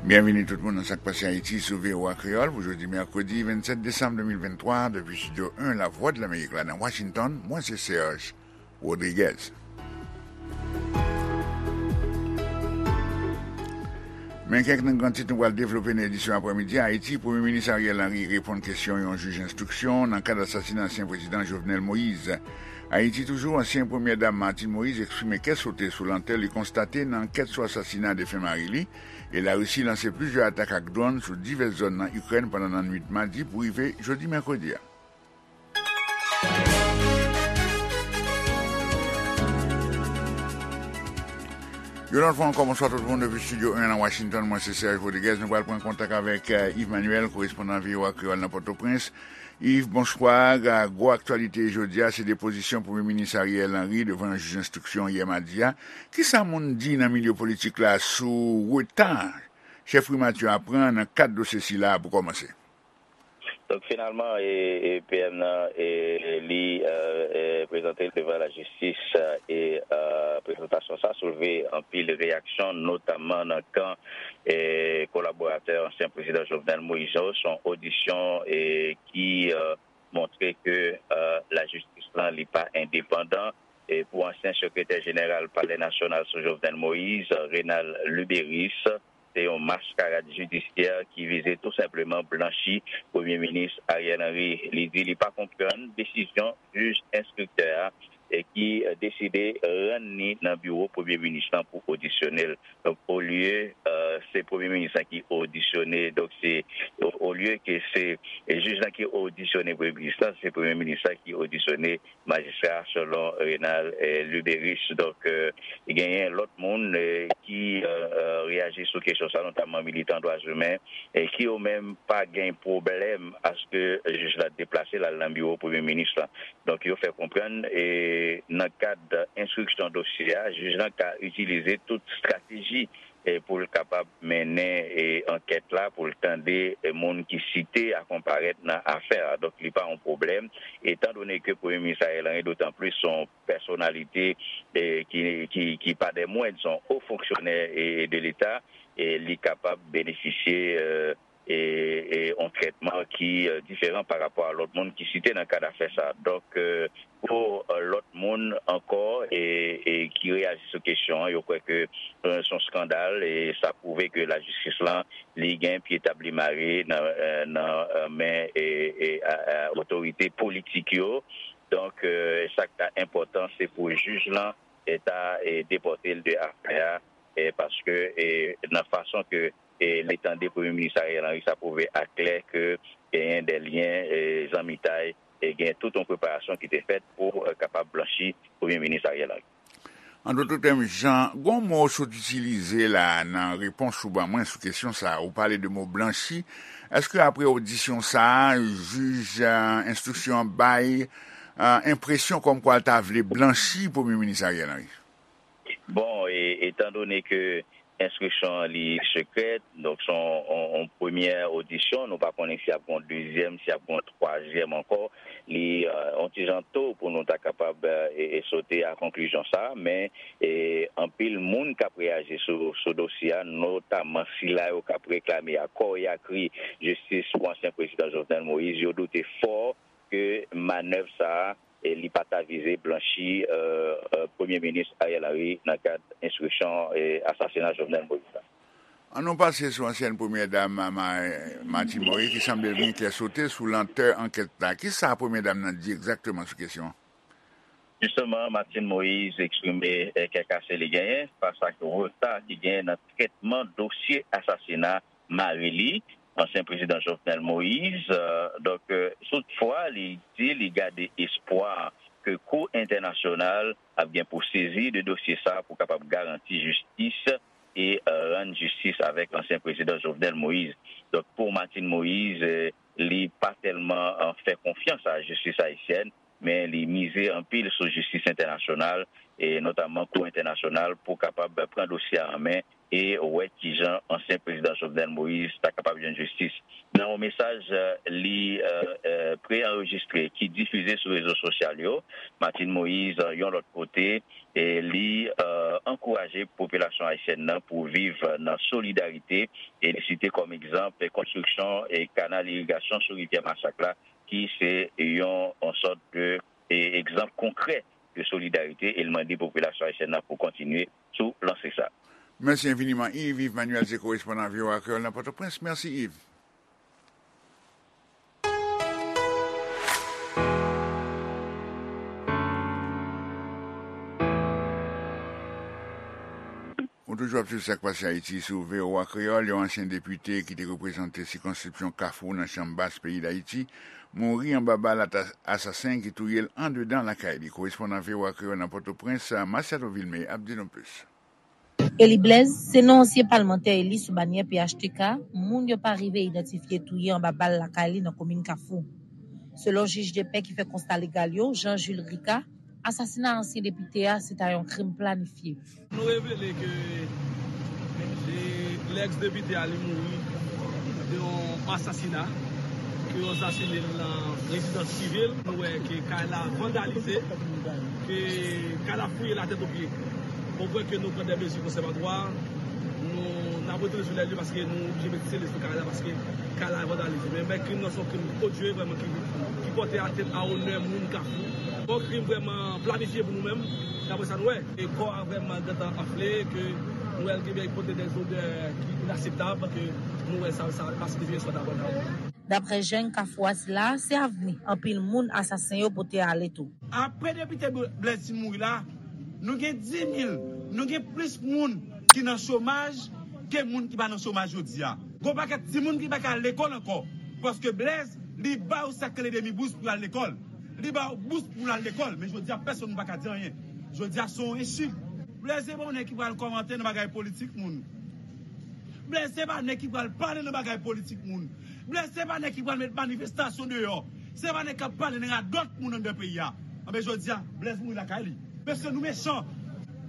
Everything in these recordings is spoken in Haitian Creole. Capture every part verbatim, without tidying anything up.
Byenvini tout moun nan Sa k Pase Ayiti sou V O A Kreyòl pou jodi mèkredi vennsèt desanm de mil venntwa, depi Estidyo en Lavwadlamerik la nan Washington, mwen se Serge Rodriguez. Men kèk nan gran tit nou pral devlope nan edisyon aprèmidi a. Ayiti, Premye Minis Ariel Henry reponn kesyon yon jij enstriksyon nan kad asasina ansyen prezidan Jovenel Moïse. Ayiti toujou, ansyen Premyè Dam Martine Moïse eksprime kè sote sou lantè li konstate nan ankèt sou asasina defen mari li, e Larisi lanse plizyè atak ak dwòn sou divès zòn nan Ikrèn pandan nannuit madi pou rive jodi mèkredi a. Yon lòt fwa ankò, bonswa tout moun depi Estidyo en nan Washington. Mwen se Serge Rodriguez. Nou pral pran kontak avèk, eh, Yves Manuel, korespondan V O A Kreyòl nan Pòtoprens. Yves, bonswa. Gwo aktyalite jodi a, se depozisyon Premye Minis Ariel Henry devan yon jij enstriksyon yè madi a. Kisa moun di nan milye politik la sou reta chèf primati a pran nan kad dosye sila a pou kòmanse? Donk, finalman, e, e, P M nan, e, li, e, e, prezante l devan lajistis, e, e, prezantasyon sa soulve anpil reyaksyon, notamman nan kan, e, kolaboratè ansyen prezidan Jovenel Moïse yo. Se yon odisyon, e, ki, e, montre ke, e, lajistis lan, li pa endepandan. E pou ansyen sekretè jeneral Palè Nasyonal sou Jovenel Moïse, Renald Luberice, se yon maskarad jidisyè ki vize tou senpleman blanchi Premye Minis Ariel Henry. Li di li pa konprann desizyon jij enstriktè a, e ki, e, deside rann li nan biwo Premye Minis lan pou odisyone l. Donk, olye, e, se Premye Minis lan ki odisyone, donk se, o-, olye ke se, e, jij lan ki odisyone Premye Minis lan, se Premye Minis lan ki odisyone majistra, selon Renald, e, Luberice. Donk, e, genyen lòt moun, e, ki, e, e, reyaji sou kesyon sa, notamman militan dwa imen, e ki yo menm pa gen pwoblèm aske jij la deplase l al nan biwo Premye Minis lan. Donk, yo fè konprann, e, nan kad enstriksyon dosye a, jij lan ka itilize tout estrateji, e, pou l kapab mennen, e, ankèt la, pou l tande, e, moun ki site a konparèt nan afè a. Donk, li pa yon pwoblèm, etandone ke Premye Minis Ariel Henry, dotan plis, se yon pèsonalite, e, ki, ki, ki pa dè mwend, se yon o fonksyonè, e, de Leta, e li kapab benefisye, e, e, e yon trètman ki, e, diferan pa rapò a lòt moun ki site nan kad afè sa. Donk, e, pou, e, lòt moun ankò, e, e, ki reyaji sou kesyon an, yo kwè ke, e, se yon eskandal, e sa pwouve ke lajistis lan, li gen pye tab li mare nan, e, nan, e, men, e, e, a, a, otorite politik yo. Donk, e, sa k ta enpòtan, se pou jij lan, e, ta, e, depòte l de afè a, e, paske, e, nan fason ke, e, li tande Premye Minis Ariel Henry, sa pwouve aklè ke genyen de lyen, e, zanmitay, e gen tout yon preparasyon ki te fèt pou, e, kapab blanchi Premye Minis Ariel Henry. An dout tèm, Jan, gon mo w sot itilize la nan repons ou ban mwen sou kesyon sa a. Ou pale de mo blanchi. Èske apre odisyon sa a, jij, e, enstriksyon an bay, e, enpresyon kòmkwa l ta vle blanchi Premye Minis Ariel Henry? Bon, e, etandone ke enstriksyon an li sekrè, donk se yon, yon, yon premyè odisyon, nou pa konnen si ap gen yon dezyèm, si ap gen yon twazyèm ankò. Li, e, yon ti jan to pou nou ta kapab, e, e, sote a konklizyon sa a, men, e, anpil moun k ap reyaji sou, sou dosye a, notamman sila yo k ap reklame a kò e a kri jistis pou ansyen prezidan Jovenel Moïse, yo doute fò ke manèv sa a, e, li pa ta vize blanchi, e, e, Premye Minis Ariel Henry nan kad enstriksyon, e, asasina Jovenel Moïse la. An nou pase sou ansyèn Premyè Dam, Ma-, Ma-, Martine Moïse, ki sanble vin kè sote sou lantè ankèt la. Kisa Premyè Dam nan di egzakteman sou kesyon an? Jisteman, Martine Moïse eksprime, e, kè kase li genyen fas ak reta ki genyen nan trètman dosye asasina mari li, ansyen prezidan Jovenel Moïse. E, donk, e, toutfwa, li di li gade espwa ke Kou Entènasyonal ap gen pou sezi de dosye sa a pou kapab garanti jistis e, e, rann jistis avèk ansyen prezidan Jovenel Moïse. Donk, pou Martine Moïse, e, li pa tèlman, e, fè konfyans a jistis ayisyèn, men li mize anpil sou jistis entènasyonal, e notamman Kou Entènasyonal, pou kapab pran dosye a an men e wè kijan ansyen prezidan Jovenel Moïse ta kapab jwenn jistis. Nan yon mesaj, eh, li, eh, eh, pre-anrejistre ki difize sou rezo sosyal yo, Martine Moïse, eh, yon lòt kote, e li, eh, ankouraje popilasyon ayisyèn nan pou viv nan solidarite, e li site kòm egzanp konstriksyon e kanal irigasyon sou rivyè Masak la, ki se yon, yon sòt de, e, egzanp konkrè de solidarite, e l mande popilasyon ayisyèn nan pou kontinye sou lanse sa. Mèsi enfiniman, Yves. Yves Manuel se korespondan V O A Kreyòl nan Pòtoprens. Mèsi, Yves. Ou toujou ap swiv Sa k Pase Ayiti sou V O A Kreyòl. Yon ansyen depite ki te reprezante sikonskripsyon Kafou nan Chanm Bas peyi Dayiti mouri anba bal ata-, asasen ki touye l andedan lakay li. Korespondan V O A Kreyòl nan Pòtoprens, Masiado Vilmé, ap di nou plis. Eli Blaise se non ansyen palmantè eli sou banyè P H T K moun yo pa rive idantifye touye anba bal lakay li nan komin Kafou. Selon jij de pè ki fè konsta legal yo, Jean Jules Ricard, asasina ansyen depite a se ta yon krim planifye. Nou revele ke e, lèks depite a li mouri de yon asasina ke yo asasine l nan rezidans prive l. Nou wè ke kay la vandalize, ke kay la fouye la tèt o pye. Bon, pou ke nou pran de mezi konsèvatwa, nou n ap retounen sou lè li paske nou oblije mete sele sou kay la paske kay la vandalize. Men, men krim nan se yon krim odye vrèman ki, ki pòte atènt a onè moun Kafou. Yon krim vrèman planifye pou nou menm, daprè sa nou wè. E kò a vrèman gentan anfle, ke nou wè l gentan pote de zodè ki inaseptab, ke nou wè sa, sa pa signifye sa dabò dabò. Daprè jèn Kafou a sila, se avni anpil moun asasen yo pote ale tou. Apre depite Blaise fin mouri la, nou gen dis mil, nou gen plis moun ki nan chomaj ke moun ki pa nan chomaj jodi a. Gon pakèt timoun ki pa ka al lekòl ankò, paske Blaise, li ba yo sa k rele demi bous pou y al lekòl. Li ba yo bous pou l al lekòl, men jodi a pèsonn pa ka di anyen. Jodi a se yon ensult. Blaise se pa yon nèg ki pral kòmante nan bagay politik moun. Blaise se pa nèg ki pral pale nan bagay politik moun. Blaise se pa nèg ki pral met manifestasyon deyò. Se pa nèg k ap pale nan radòt moun anndan peyi a. Anben jodi a, Blaise mouri lakay li. Mesye nou mechan.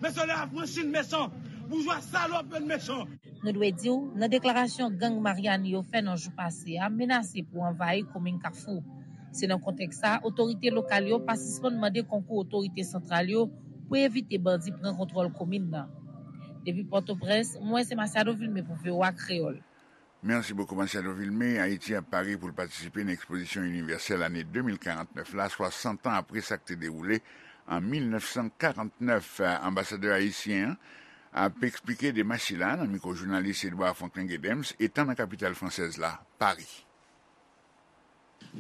Mesye lè afranchi n mechan. Boujwa salòp yo n mechan. Nou dwe di w, nan deklarasyon gang Maryani yo fè nan jou pase a menase pou anvayi komin Kafou. Se nan kontèks sa a, otorite lokal yo pa sispann mande konkou otorite santral yo pou evite bandi pran kontwòl komin nan. Depi Pòtoprens, mwen se Masiado Vilmé pou V O A Kreyòl. Merci beaucoup, Masiado Vilmé. Ayiti ap pare pou l patisipe nan ekspozisyon inivèsèl ane de mil karant nèf la, swasant an apre sa k te dewoule an mil nèf san karant nèf. Anbasadè ayisyen an ap eksplike demach sila nan mikwo jounalis Edouard Franklin Gedems, etan nan kapital fransèz la, Pari.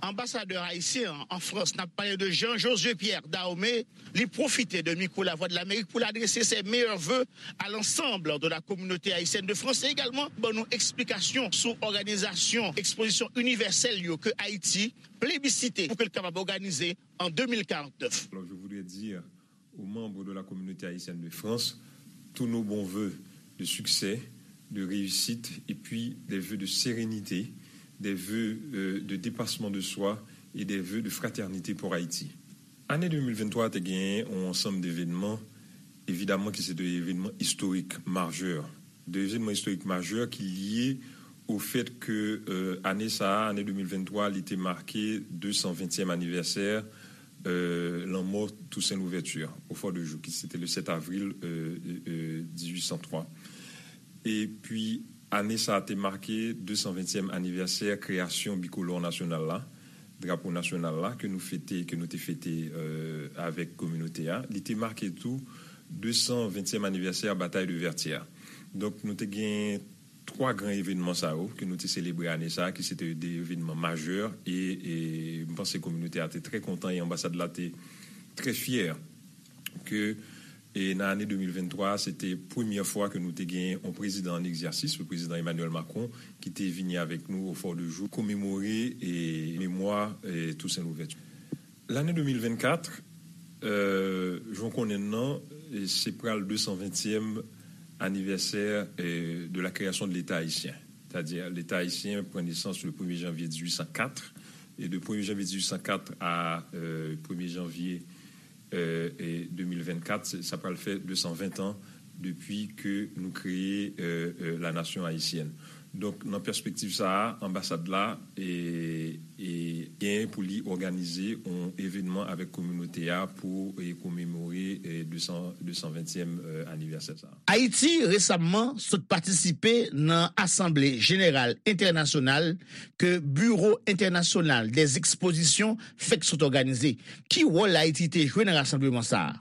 Anbasadè ayisyen an an Frans, n ap pale de Jean Josué Pierre Dahomey, li pwofite de mikwo Lavwadlamerik pou l adrese ses meilleurs vœux à l'ensemble de la communauté haïtienne de France e egalman ban nou eksplikasyon sou òganizasyon ekspozisyon inivèsèl yo ke Ayiti plebisite pou ke l kapab òganize an de mil karant nèf. Alors, je voudrais dire aux membres de la communauté haïtienne de France tous nos bons vœux de succès, de réussite et puis des vœux de sérénité, des vœux euh, de dépassement de soi et des vœux de fraternité pour Haïti. Ane de mil venntwa a te genyen yon ansanm de evènman, evidaman ki se de evènman istorik majè, de evènman istorik majè ki lye au fait que euh, ane sa a, ane de mil venntwa, li te make de san ventyèm anivèsè euh, lanmò Toussaint Louverture au Fort de Joux, ki se te le sept avril euh, euh, dix-huit cent trois. Epi ane sa a te make de san ventyèm anivèsè kreyasyon bikolò nasyonal la, drapo nasyonal la, ke nou fete, ke nou te fete euh, avèk kominote a. Li te make tou de san ventyèm anivèsè Batay de Vètyè. Donk nou te gen twa gran evènman sa yo ke nou te selebre ane sa a, ki se te de evènman majè, e, e m panse kominote a te trè kontan e anbasad la te trè fyè ke e nan ane de mil venntwa a, se te premyè fwa ke nou te gen yon prezidan an egzèsis, le prezidan Emmanuel Macron, ki te vini avèk nou au Fort de Joux, komemore e memwa e Toussaint Louverture. L'année deux mille vingt-quatre, euh, jan w konnen l nan, se pral de san ventyèm anivèsè euh, de la création de l'État haïtien. C'est-à-dire, l'État haïtien pran nesans le premye janvye dizuit san kat, e de premye janvye dizuit san kat a euh, premye janvye euh, e de mil vennkat, sa pral fè de san ven an Depi ke nou kreye euh, euh, la nasyon ayisyèn. Donk, nan pèspektiv sa a, anbasad la e, e genyen pou li òganize yon evènman avèk kominote a pou e, komemore e, de san, de san ventyèm euh, anivèsè sa a. Ayiti resamman sot patisipe nan Asanble Jeneral Entènasyonal ke Biwo Entènasyonal dè Ekspozisyon fèk sot òganize. Ki wòl Ayiti te jwe nan rasanbleman sa a?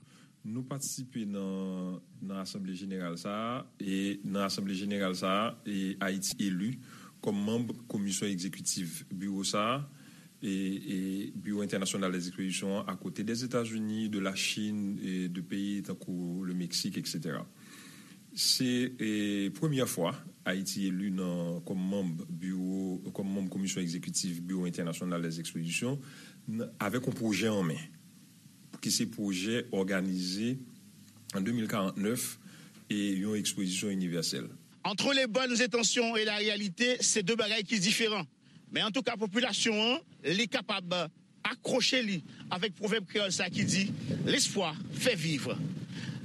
Nou patisipe nan, nan asanble jeneral sa a, e nan asanble jeneral sa a, e Ayiti eli kòm manm komisyon egzekitif biwo sa a, e, e Biwo Entènasyonal dèzekspozisyon an, akote dèzetazini, de la Chine, e de peyi tankou le Meksik, etsetera. Se e, premyè fwa Ayiti eli nan, kòm manm biwo, kòm manm komisyon egzekitif Biwo Entènasyonal dèzekspozisyon, n- avèk yon pwojè an men. Ki se pwojè òganize an de mil karannèf e yon ekspozisyon inivèsèl. Entre les bonnes intentions et la réalité, se de bagay ki diferan. Men antouka, popilasyon an, li kapab akwoche li avèk pwovèb kreyòl sa ki di, L'espoir fait vivre.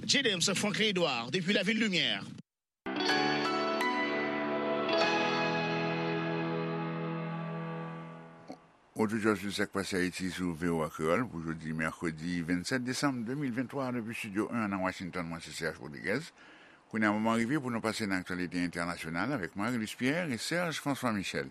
J. Dems, Franklin Edouard, depi Lavil Limyè. Odyodifizyon sou Sak Pase Ayiti sou V O A Kreyòl pou jodi mèkredi vennsèt desanm de mil venntwa, depi Estidyo en nan Washington, mwen se Serge Rodriguez. Kounye a moman rive pou nou pase nan aktyalite entènasyonal avèk Marie-Luce Pierre e Serge François Michel.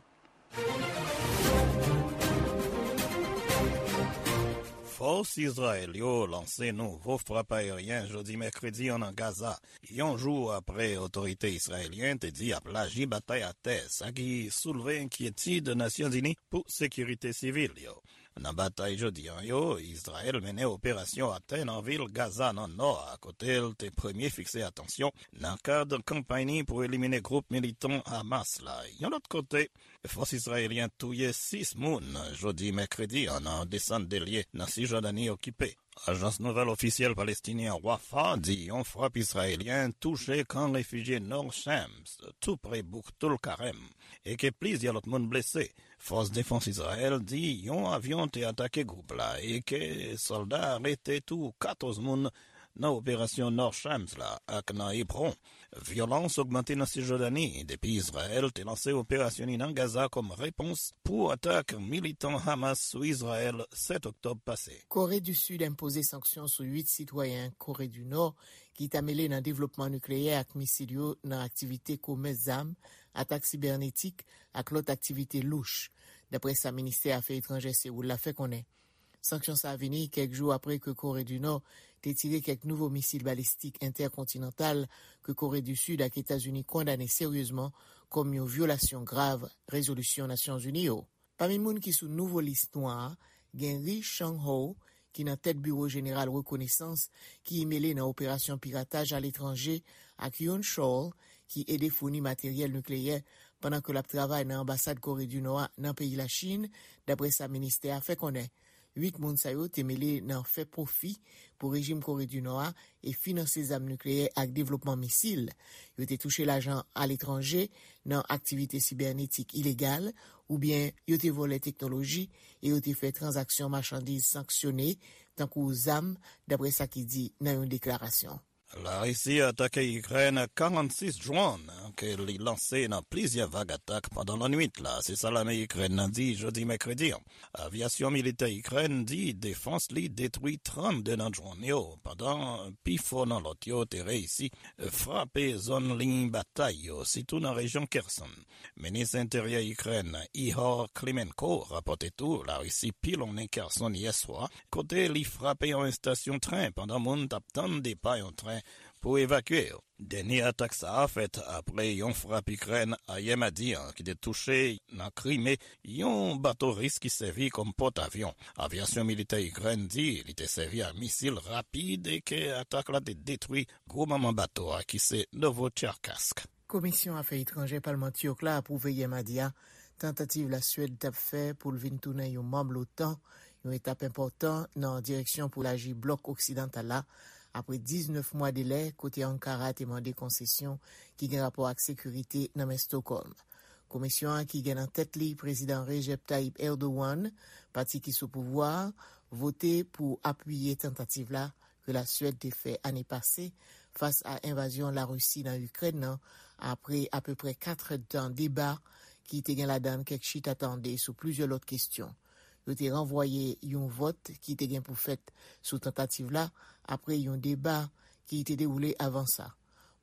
Fòs Izrayèl yo lanse nouvo frap ayeryen jodi mèkredi an nan Gaza, yon jou apre otorite izrayelyen te di y ap laji batay atè, sa ki soulve enkyetid Nasyonzini pou sekirite sivil yo. Nan batay jodi an yo, Izrayèl mennen operasyon atè nan vil Gaza nan nò a, kote l te premye fikse atansyon nan kad kanpay ni pou elimine gwoup militan Hamas la. Yon lòt kote, fòs izrayelyen touye sis moun jodi mèkredi an nan desann de lye nan Sijòdani okipe. Ajans nouvèl ofisyèl palestinyen Wafa di yon frap izrayelyen touche kan refijye Nor Shams, tou pre bouk Tulkarem, e ke plizyè lòt moun blese. Fòs defans Izrayèl di yon avyon te atake gwoup la e ke sòlda arete tou katòz moun nan operasyon Nor Shams la ak nan Hebron. Vyolans ogmante nan Sijòdani depi Izrayèl te lanse operasyon li nan Gaza kòm repons pou atak militan Hamas sou Izrayèl sèt oktòb pase. Kore di Sid enpoze sanksyon sou uit sitwayen Kore di Nò ki ta mele nan devlopman nikleyè ak misil yo nan aktivite komès zam, atak sibènetik ak lòt aktivite louch, daprè sa ministè afè etranjè Sewoul la fè konnen. Sanksyon sa a vini kèk jou apre ke Kore di Nò te tire kèk nouvo misil balistik entèkontinantal ke Kore di Sid ak Etazini kondane seryezman kòm yon vyolasyon grav rezolisyon Nasyonzini yo. Pami moun ki sou nouvo lis nwa a, gen Ri Chang Ho, ki nan tèt Biwo Jeneral Rekonesans, ki mele nan operasyon pirataj aletranje, ak Yoon Chol, ki ede founi materyèl nikleyè pandan ke l ap travay nan anbasad Kore di Nò a nan peyi Lachin, daprè sa ministè a fè konnen. Uit moun sa yo te mele nan fè pwofi pou rejim Kore di Nò a e finanse zam nikleyè ak devlopman misil. Yo te touche lajan aletranje nan aktivite sibènetik ilegal, oubyen yo te vòlè teknoloji e yo te fè tranzaksyon machandiz sanksyone, tankou zam, daprè sa ki di nan yon deklarasyon. Larisi atake Ikrèn ak karannsis dwòn ke li lanse nan plizyè vag atak pandan lannwit la, se sa lame Ikrèn nan di jodi mèkredi an. Avyasyon militè Ikrèn di defans li detwi trannde nan dwòn yo, pandan pifò nan lòt yo te reyisi frape zòn liy batay yo, sitou nan rejyon Kherson. Minis Enteryè Ikrèn, Ihor Klimenko, rapòte tou Larisi pilonnen Kherson yè swa, kote li frape yon estasyon tren pandan moun t ap tann depa yon tren pou evakye yo. Dènye atak sa a fèt apre yon frap Ikrèn ayè madi an ki te touche nan Krime yon bato ris ki sèvi kòm pòtavyon. Avyasyon militè Ikrèn di li te sèvi ak misil rapid e ke atak la te detwi gwo manman bato a ki se Novocherkassk. Komisyon Afè Etranjè Palman Tchèk la apwouve yè madi a tantativ Laswèd t ap fè pou l vin tounen yon manm l'OTAN, yon etap enpòtan nan direksyon pou laji blòk oksidantal la, apre diznèf mwa delè kote Ankara te mande konsesyon ki gen rapò ak sekirite nan men Stockholm. Komisyon an ki gen nan tèt li Prezidan Recep Tayyip Erdogan, pati ki sou pouvwa a, vote pou apiye tantativ la ke Laswèd te fè ane pase fas a envazyon Larisi nan Ikrèn nan, apre apeprè kat èdtan deba ki te gen ladan l kèk chita tande sou plizyè lòt kesyon. Yo te ranvwaye yon vòt ki te gen pou fèt sou tantativ la apre yon deba ki te dewoule avan sa.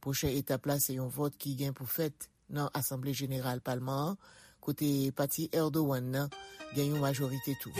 Pwochen etap la se yon vòt ki gen pou fèt nan Asanble Jeneral Palman an, kote pati Erdogan nan gen yon majorite tou.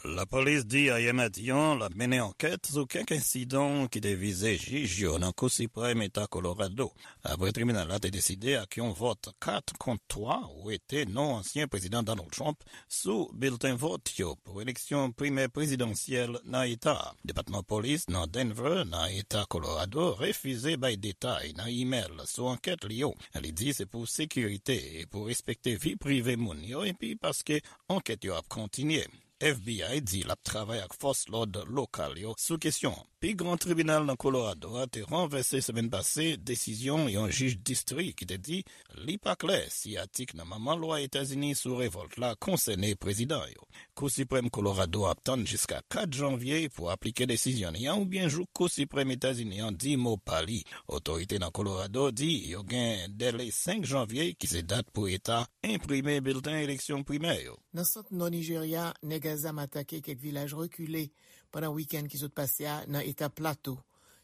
Lapolis di ayè madi an l ap mennen ankèt sou kèk ensidan ki te vize jij yo nan Kou Siprèm Eta Kolorado, apre tribinal la te deside ak yon vòt kat kont twa wete non ansyen Prezidan Donald Trump sou bilten vòt yo pou eleksyon primè prezidansyèl nan eta a. Depatman polis nan Denver, nan eta Colorado, refize bay detay nan imèl sou ankèt li yo. Li di se pou sekirite e pou respekte vi prive moun yo, epi paske ankèt yo ap kontinye. F B I di l ap travay ak fòs lòd lokal yo sou kesyon an. Pi gran tribinal nan Colorado a te ranvèse semèn pase desizyon yon jij distri ki te di li pa klè si atik nan Manman Lwa Etazini sou revòlt la konsène prezidan yo. Kou Siprèm Colorado ap tann jiska kat janvye pou aplike desizyon li an oubyen jouk Kou Siprèm Etazini an di mo pa li. Otorite nan Colorado di yo gen dèle senk janvye ki se dat pou eta enprime bilten eleksyon primè yo. Nan sant nò Nijerya, nèg a zam atake kèk vilaj rekile pandan wikenn ki sot pase a nan eta Plato.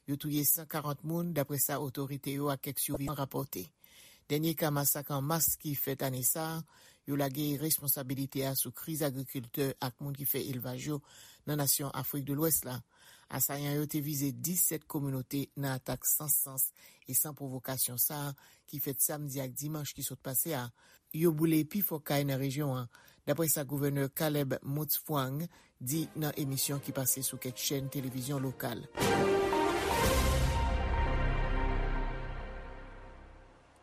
Yo touye san karant moun, dapre sa otorite yo ak kèk sivivan rapòte. Dènye ka masak an mas ki fèt ane sa a, yo lage responsabilite a sou kriz agrikiltè ak moun ki fè elvaj yo nan nasyon Afrik de Lwès la. Asayan yo te vize disèt kominote nan atak san sans e san pwovokasyon sa a ki fèt samdi ak dimanch ki sot pase a. Yo boule pifò kay nan rejyon an, dapre sa gouvènè Caleb Mutfwang di nan emisyon ki pase sou kèk chèn televizyon lokal.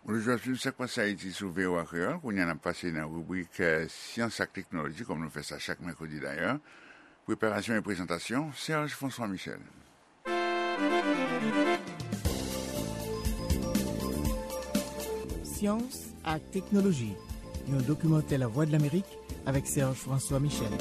Bonjou, ap swiv Sak Pase Ayiti sou V O A Kreyòl. Kounye a n ap pase nan ribrik, eh, Syans ak Teknoloji, kòm nou fè sa chak mèkredi dayè. Preparasyon e prezantasyon, Serge François Michel. Syans ak Teknoloji, yon dokimantè Lavwadlamerik avèk Serge François Michel.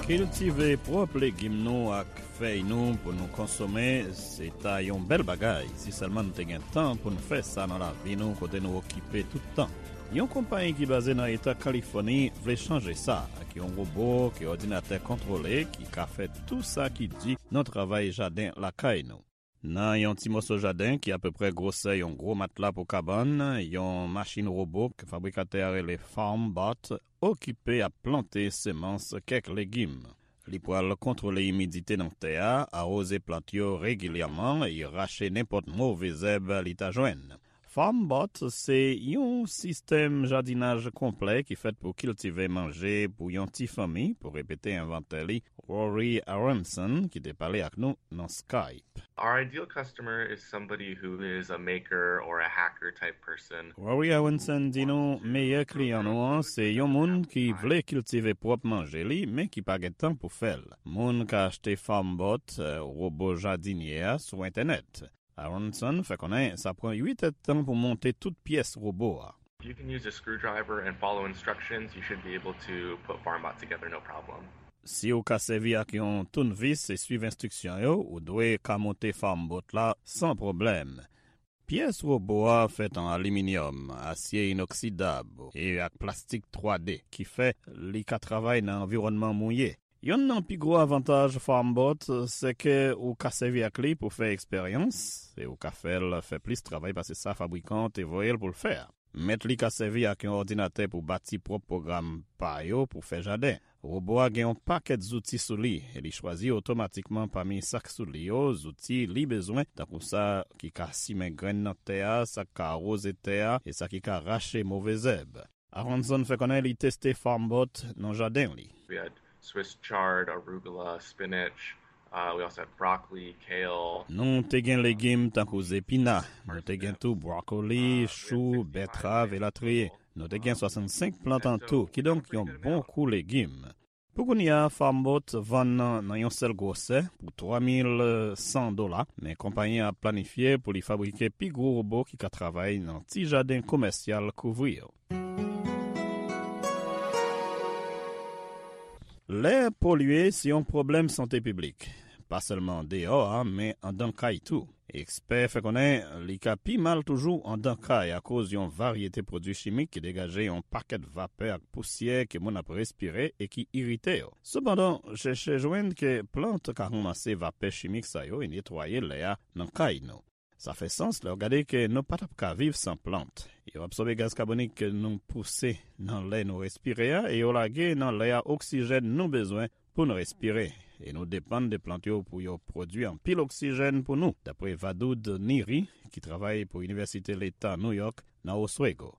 Kiltive pwòp legim nou ak fèy nou pou nou konsome, se ta yon bèl bagay si sèlman nou te gen tan pou n fè sa nan lavi nou kote nou okipe tout tan. Yon konpayi ki baze nan eta Kalifòni vle chanje sa ak yon wobo ke òdinatè kontwole ki ka fè tou sa ki di nan travay jaden lakay nou. Nan yon ti moso jaden ki apeprè gwosè yon gwo matla pou kabann, yon machin wobo ke fabrikatè a rele FarmBot okipe ap plante semans kèk legim. Li pral kontwole imidite nan tè a, awoze plant yo regilyèman e rache nenpòt move zèb li ta jwenn. FarmBot se yon sistèm jadinaj konplè ki fèt pou kiltive manje pou yon ti fanmi, pou repete envantè li, Rory Aronson, ki te pale ak nou nan Skype. Our ideal customer is somebody who is a maker or a hacker type person. Rory Aronson di nou meyè kliyan nou an se yon moun ki vle kiltive pwòp manje li, men ki pa gen tan pou fè l. Moun ka achte FarmBot, eh, wobo jadinye a, sou entènèt. Aronson fè konnen sa pran uit èdtan pou monte tout pyès wobo a. If you can use a screwdriver and follow instructions, you should be able to put FarmBot together, no problem. Si w ka sèvi ak yon tounvis e swiv enstriksyon yo, ou dwe ka monte FarmBot la san pwoblèm. Pyès wobo a fèt an aliminyòm, asye inoksidab e ak plastik twa D, ki fè li ka travay nan anviwònman mouye. Yonn nan pi gwo avantaj FarmBot se ke ou ka sèvi ak li pou fè eksperyans e ou ka fè l fè plis travay pase sa fabrikan an te voye l pou l fè a. Mèt li ka sèvi ak yon òdinatè pou bati pwòp pwogram pa yo pou fè jaden. Wobo a gen yon pakèt zouti sou li e li chwazi otomatikman pami sa k sou li yo zouti li bezwen, tankou sa ki ka simen grenn nan tè a, sa k ka awoze tè a e sa ki ka rache move zèb. Aronson fè konnen li teste FarmBot nan jaden li. We had Swiss chard, arugula, spinach. Uh, we also had broccoli, kale. Nou te gen legim tankou zepina, nou te gen tou bwokoli, chou, bètrav, elatriye. Nou te gen swasannsenk plant an tou, kidonk yon bon kou legim. Pou kounye a, FarmBot vann nan, nan yon sèl gwosè pou twa mil san dola, men konpayi an ap planifye pou li fabrike pi gwo wobo ki ka travay nan ti jaden komèsyal kouvri yo. Lè polye se yon pwoblèm sante piblik. pa sèlman deyò a, men anndan kay tou. Ekspè fè konnen li ka pi mal toujou anndan kay akoz yon varyete pwodui chimik ki degaje yon pakèt vapè ak pousyè ke moun ap respire e ki irite yo. Sepandan, chèchè jwenn ke plant ka ranmase vapè chimik sa yo e netwaye lè a nan kay nou. Sa fè sans lè w gade ke nou pa t ap ka viv san plant. Yo absòbe gaz kabonik ke nou pouse nan lè nou respire a e yo lage nan lè a oksijèn nou bezwen pou n respire, e nou depann de plant yo pou yo pwodui anpil oksijèn pou nou, dapre Vadoud Niri, ki travay pou Inivèsite Leta New York nan Oswego.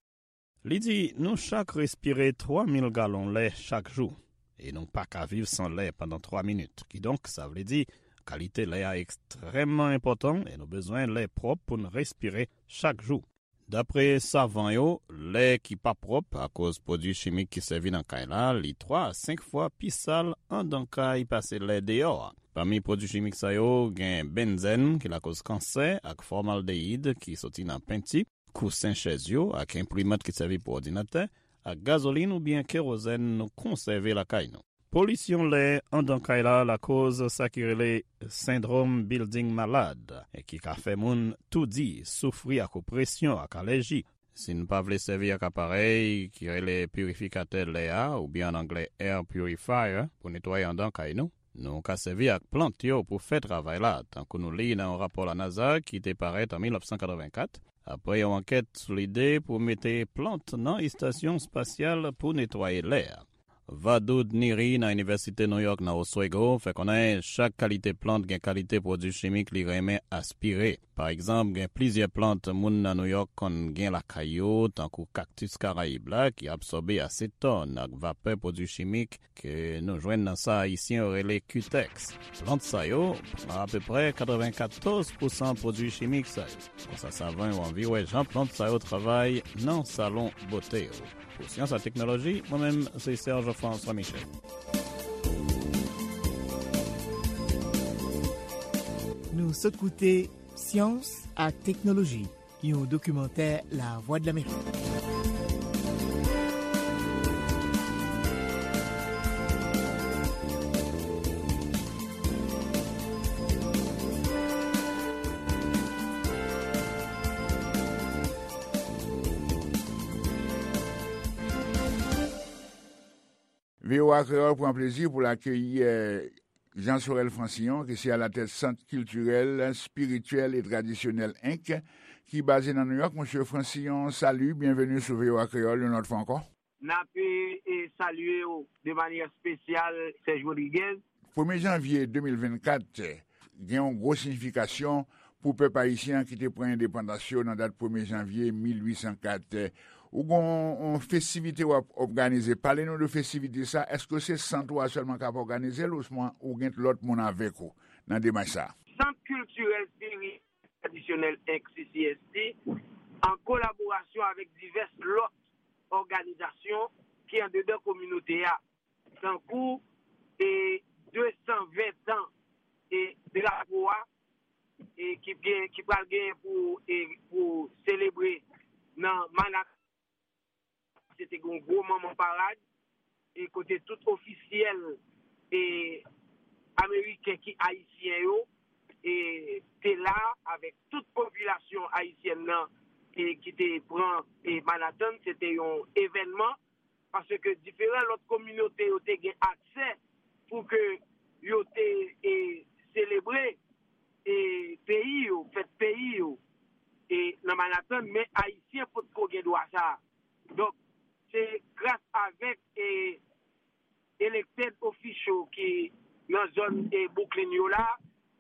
Li di, nou chak respire twa mil galon lè chak jou, e nou pa ka viv san lè pandan twa minit. Kidonk, sa vle di, kalite lè a ekstrèmman enpòtan e nou bezwen lè pwòp pou n respire chak jou. Dapre savan yo, lè ki pa pwòp akoz pwodui chimik ki sèvi nan kay la, li twa a senk fwa pi sal anndan kay pase lè deyò a. Pami pwodui chimik sa yo, gen benzèn ki lakoz kansè ak fòmaldeyid ki soti nan penti, kousen chèz yo ak enprimant ki sèvi pou òdinatè, ak gazolin oubyen kerozèn nou konsève lakay nou. Polisyon lè anndan kay la lakoz sa ki rele sendwòm bilding malad, e ki ka fè moun toudi, soufri ak opresyon ak alèji. Si n pa vle sèvi ak aparèy ki rele pirifikatè lè a, oubyen an anglè air purifier, pou netwaye anndan kay nou, nou ka sèvi ak plant yo pou fè travay la, tankou nou li nan yon rapò la NASA ki te parèt an mil nèf san katrevenkat, apre yon ankèt sou lide pou mete plant nan estasyon espasyal pou netwaye lè a. Vadoud Niri nan Inivèsite New York nan Oswego fè konnen chak kalite plant gen kalite pwodui chimik li renmen aspire. Pa egzanp, gen plizyè plant moun nan New York konn gen lakay yo, tankou kaktis Karayib la, ki absòbe asetòn ak vapè pwodui chimik ke nou jwenn nan sa Ayisyen yo rele Cutex. Plant sa yo pran apeprè katrevenkatòz pousan pwodui chimik sa yo. Konsa, savan yo anvi wè jan plant sa yo travay nan salon bote yo. Pou Syans ak Teknoloji, mwen menm, se Serge François Michel. Nou sot koute Syans ak Teknoloji, yon dokimantè Lavwadlamerik. V O A Kreyòl pran plezi pou l akeyi, eh, Jean Sorel Francillon, ki se alatèt Sant Kiltirèl, Espirityèl e Tradisyonèl, enk, ki baze nan Nouyòk. Mesye Francillon, salut, byenveni sou V O A Kreyòl yon lòt fwa ankò. N ap, e, e, salye w de manyè espesyal, Serge Rodriguez. Premye janvye de mil vennkat, gen yon gwo siyifikasyon pou pèp ayisyen an ki te pran endepandans yo nan dat premye janvye mil uit san kat. Ou gen yon, yon festivite w ap òganize. Pale nou de festivite sa. Èske se sant ou a sèlman k ap òganize l ouswa ou gen lòt moun avèk ou nan demach sa? Sant Kiltirèl Espirityèl Tradisyonèl, enk, C C S T, an kolaborasyon avèk divès lòt òganizasyon ki andedan kominote a, tankou, e, de san ven tan, e, drapo a, e, ki gen, ki pral genyen pou, e, pou selebre nan Manhattan. Se te gen yon gwo manman parad, e kote tout ofisyèl, e, ameriken ki ayisyen yo, e, te la avèk tout popilasyon ayisyèn nan, e, ki te pran, e, Manhattan. Se te yon evènman, paske diferan lòt kominote yo te gen aksè pou ke yo te, e, selebre, e, peyi yo, fèt peyi yo, e, nan Manhattan, men ayisyen potko gen dwa sa a. Donk, se gras avèk, e, elected official ki nan zòn, e, Brooklyn yo la,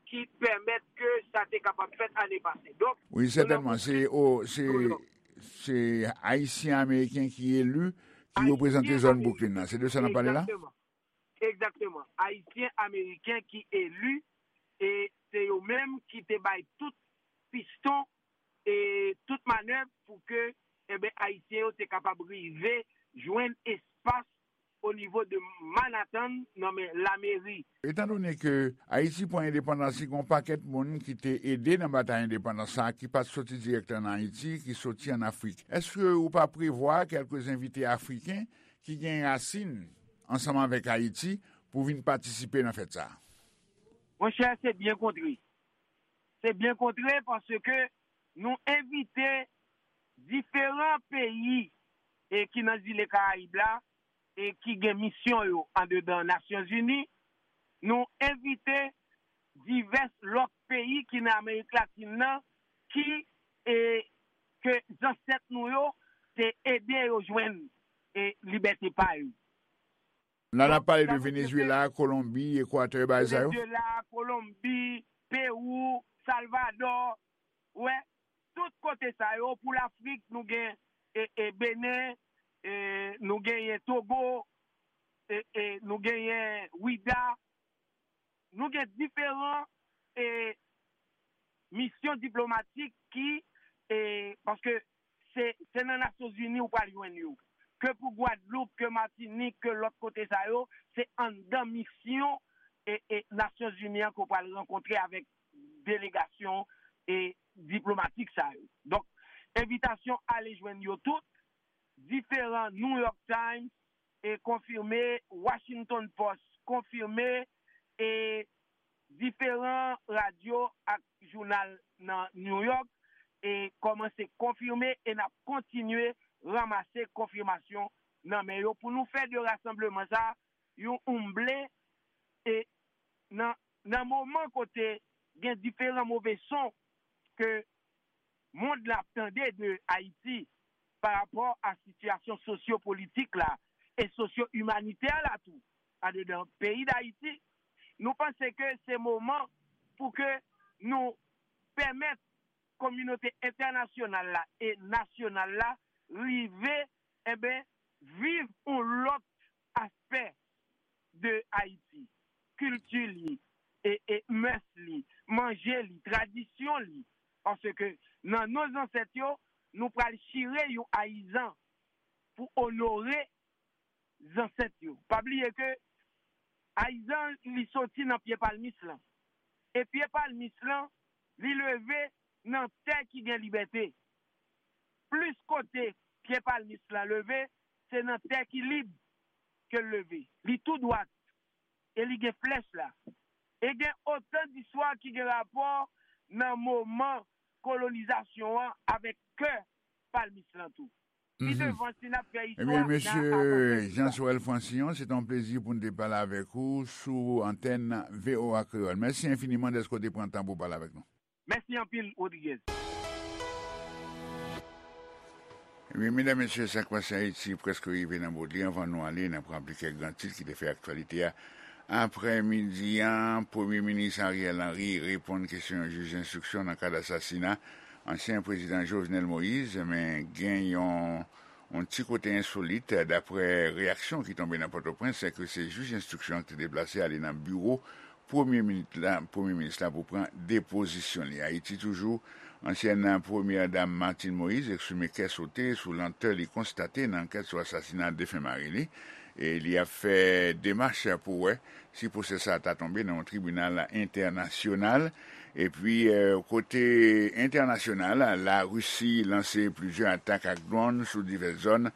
ki pèmèt ke sa te kapab fèt ane pase. Donk, wi, sètènman, se, o, se, se Ayisyen Ameriken ki eli, ki reprezante zòn Brooklyn nan. Se de sa n ap pale la? Egzakteman. Egzakteman. Ayisyen Ameriken ki eli, e se yo menm ki te bay tout piston e tout manèv pou ke, enben, Ayisyen yo te kapab rive jwenn espas o nivo de Manhattan nan men lameri. Etandone ke Ayiti pran endepandans li, gen yon pakèt moun ki te ede nan batay endepandans sa a, ki pa t soti dirèkteman nan Ayiti, ki soti ann Afrik. Èske ou pa prevwa kèlke envite afriken ki gen rasin ansanm avèk Ayiti pou vin patisipe nan fèt sa a? Monchè, se byen kontre. Se byen kontre paske nou envite diferan peyi e ki nan zile Karayib la e ki gen misyon yo andedan Nasyonzini. Nou envite divès lòt peyi ki nan Amerik Latin nan ki e ke zansèt nou yo te ede yo jwenn e libète pa yo. La n ap pale de Venezuela, Kolonbi, Ekwatè, bagay sa yo. Venezuela, Kolonbi, Pewou, Salvadò, wè, tout kote sa yo, pou Lafrik, nou gen e, e Benen, e, nou genyen Togo, e, e, nou genyen Wida, nou gen diferan e, misyon diplomatik ki, e, paske se, se nan Nasyonzini ou pral jwenn yo. Ke pou Gwadloup, ke Matinik, ke lòt kote sa yo, se anndan misyon e, e Nasyonzini an ke w pral rankontre avèk delegasyon e diplomatik sa yo. Donk, envitasyon ale jwenn yo tout, diferan New York Times e konfime, Washington Post konfime, e diferan radyo ak jounal nan New York e kòmanse konfime e n ap kontinye ranmase konfimasyon nan men yo pou nou fè de rasanbleman sa yon oumble e nan, nan moman kote gen diferan move son ke mond la ap tande de Ayiti pa rapò a sitiyasyon sosyopolitik la e sosyo-imanitè la tou andedan peyi Dayiti, nou panse ke se moman pou ke nou pèmèt kominote entènasyonal la e nasyonal la rive, enben, viv yon lòt aspè de Ayiti, kilti li, e, e mès li, manje li, tradisyon li. Paske nan non zansèt yo, nou pral chire yon ayizan pou onore zansèt yo. Pa bliye ke ayizan li soti nan pye palmis lan. E pye palmis lan, li leve nan tè ki gen libète. Plis kote pye palmis lan leve, se nan tè ki lib ke l leve. Li tou dwat e li gen flèch la. E gen otan distwa ki gen rapò nan moman kolonizasyon an avèk kè palmis lan tou. Pi devan, si n ap fè istwa, n a avanse sou sa. Ebyen, mesye Jean Sorel Francillon, se te yon plezi pou n te pale avèk ou sou antèn V O A Kreyòl. Mèsi enfiniman dèske w te pran tan pou w pale avèk nou. Mèsi anpil, Rodriguez. Ebyen, medam, mesye, Sa k pase Ayiti prèske rive nan bout li. Anvan nou ale, n ap raple kèk gran tit ki te fè aktyalite a. Aprèmidi a, Premye Minis Ariel Henry reponn kesyon yon jij enstriksyon nan kad asasina ansyen prezidan Jovenel Moïse, men gen yon, yon ti kote ensolit, daprè reyaksyon ki tonbe nan Pòtoprens, se ke se jij enstriksyon an ki te deplase ale nan biwo Premye Minis la, Premye Minis la pou pran depozisyon li. Ayiti toujou, ansyèn Premyè Dam Martine Moïse eksprime kè sote sou lantè li konstate nan ankèt sou asasina defen mari li, e li ap fè demach pou wè si pwosè sa a ta tonbe nan yon tribinal entènasyonal. Epi, eh, kote entènasyonal, Larisi lanse plizyè atak ak dwòn sou divès zòn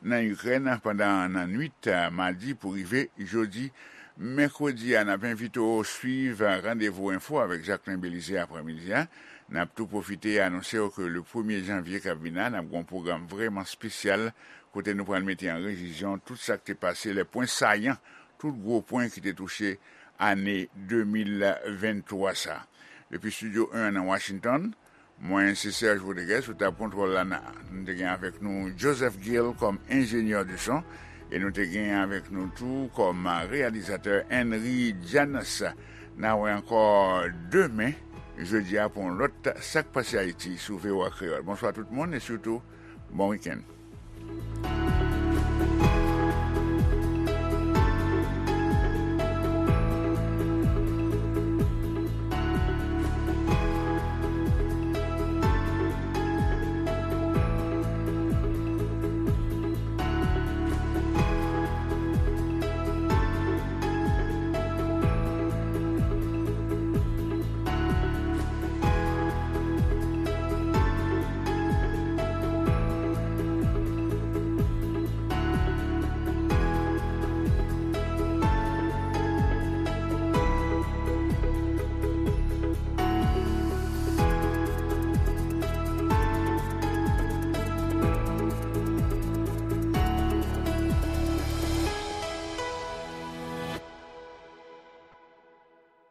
nan Ikrèn pandan nan nwit, eh, madi pou rive jodi. Mèkredi a, n ap envite w swiv Randevou Enfo avèk Jacquelin Belizaire aprèmidi a. N ap tou pwofite anonse w ke le premye janvye k ap vin la, n ap gen yon pwogram vrèman espesyal kote nou pral mete an revizyon tout sa k te pase, les points saillants, tout gwo pwen ki te touche ane de mil venntwa sa. Depi Estidyo en an nan Washington, mwen se Serge Rodriguez, sou tab kontwòl la, n a, nou te gen avèk nou Joseph Gill kòm enjenyè de son, e nou te gen avèk nou tou kòm reyalizatè Henry Janas. N a wè ankò demen, jodi a, pou yon lòt Sa k pase Ayiti sou V O A Kreyòl. Bonswa tout moun, e sitou, bon wikenn.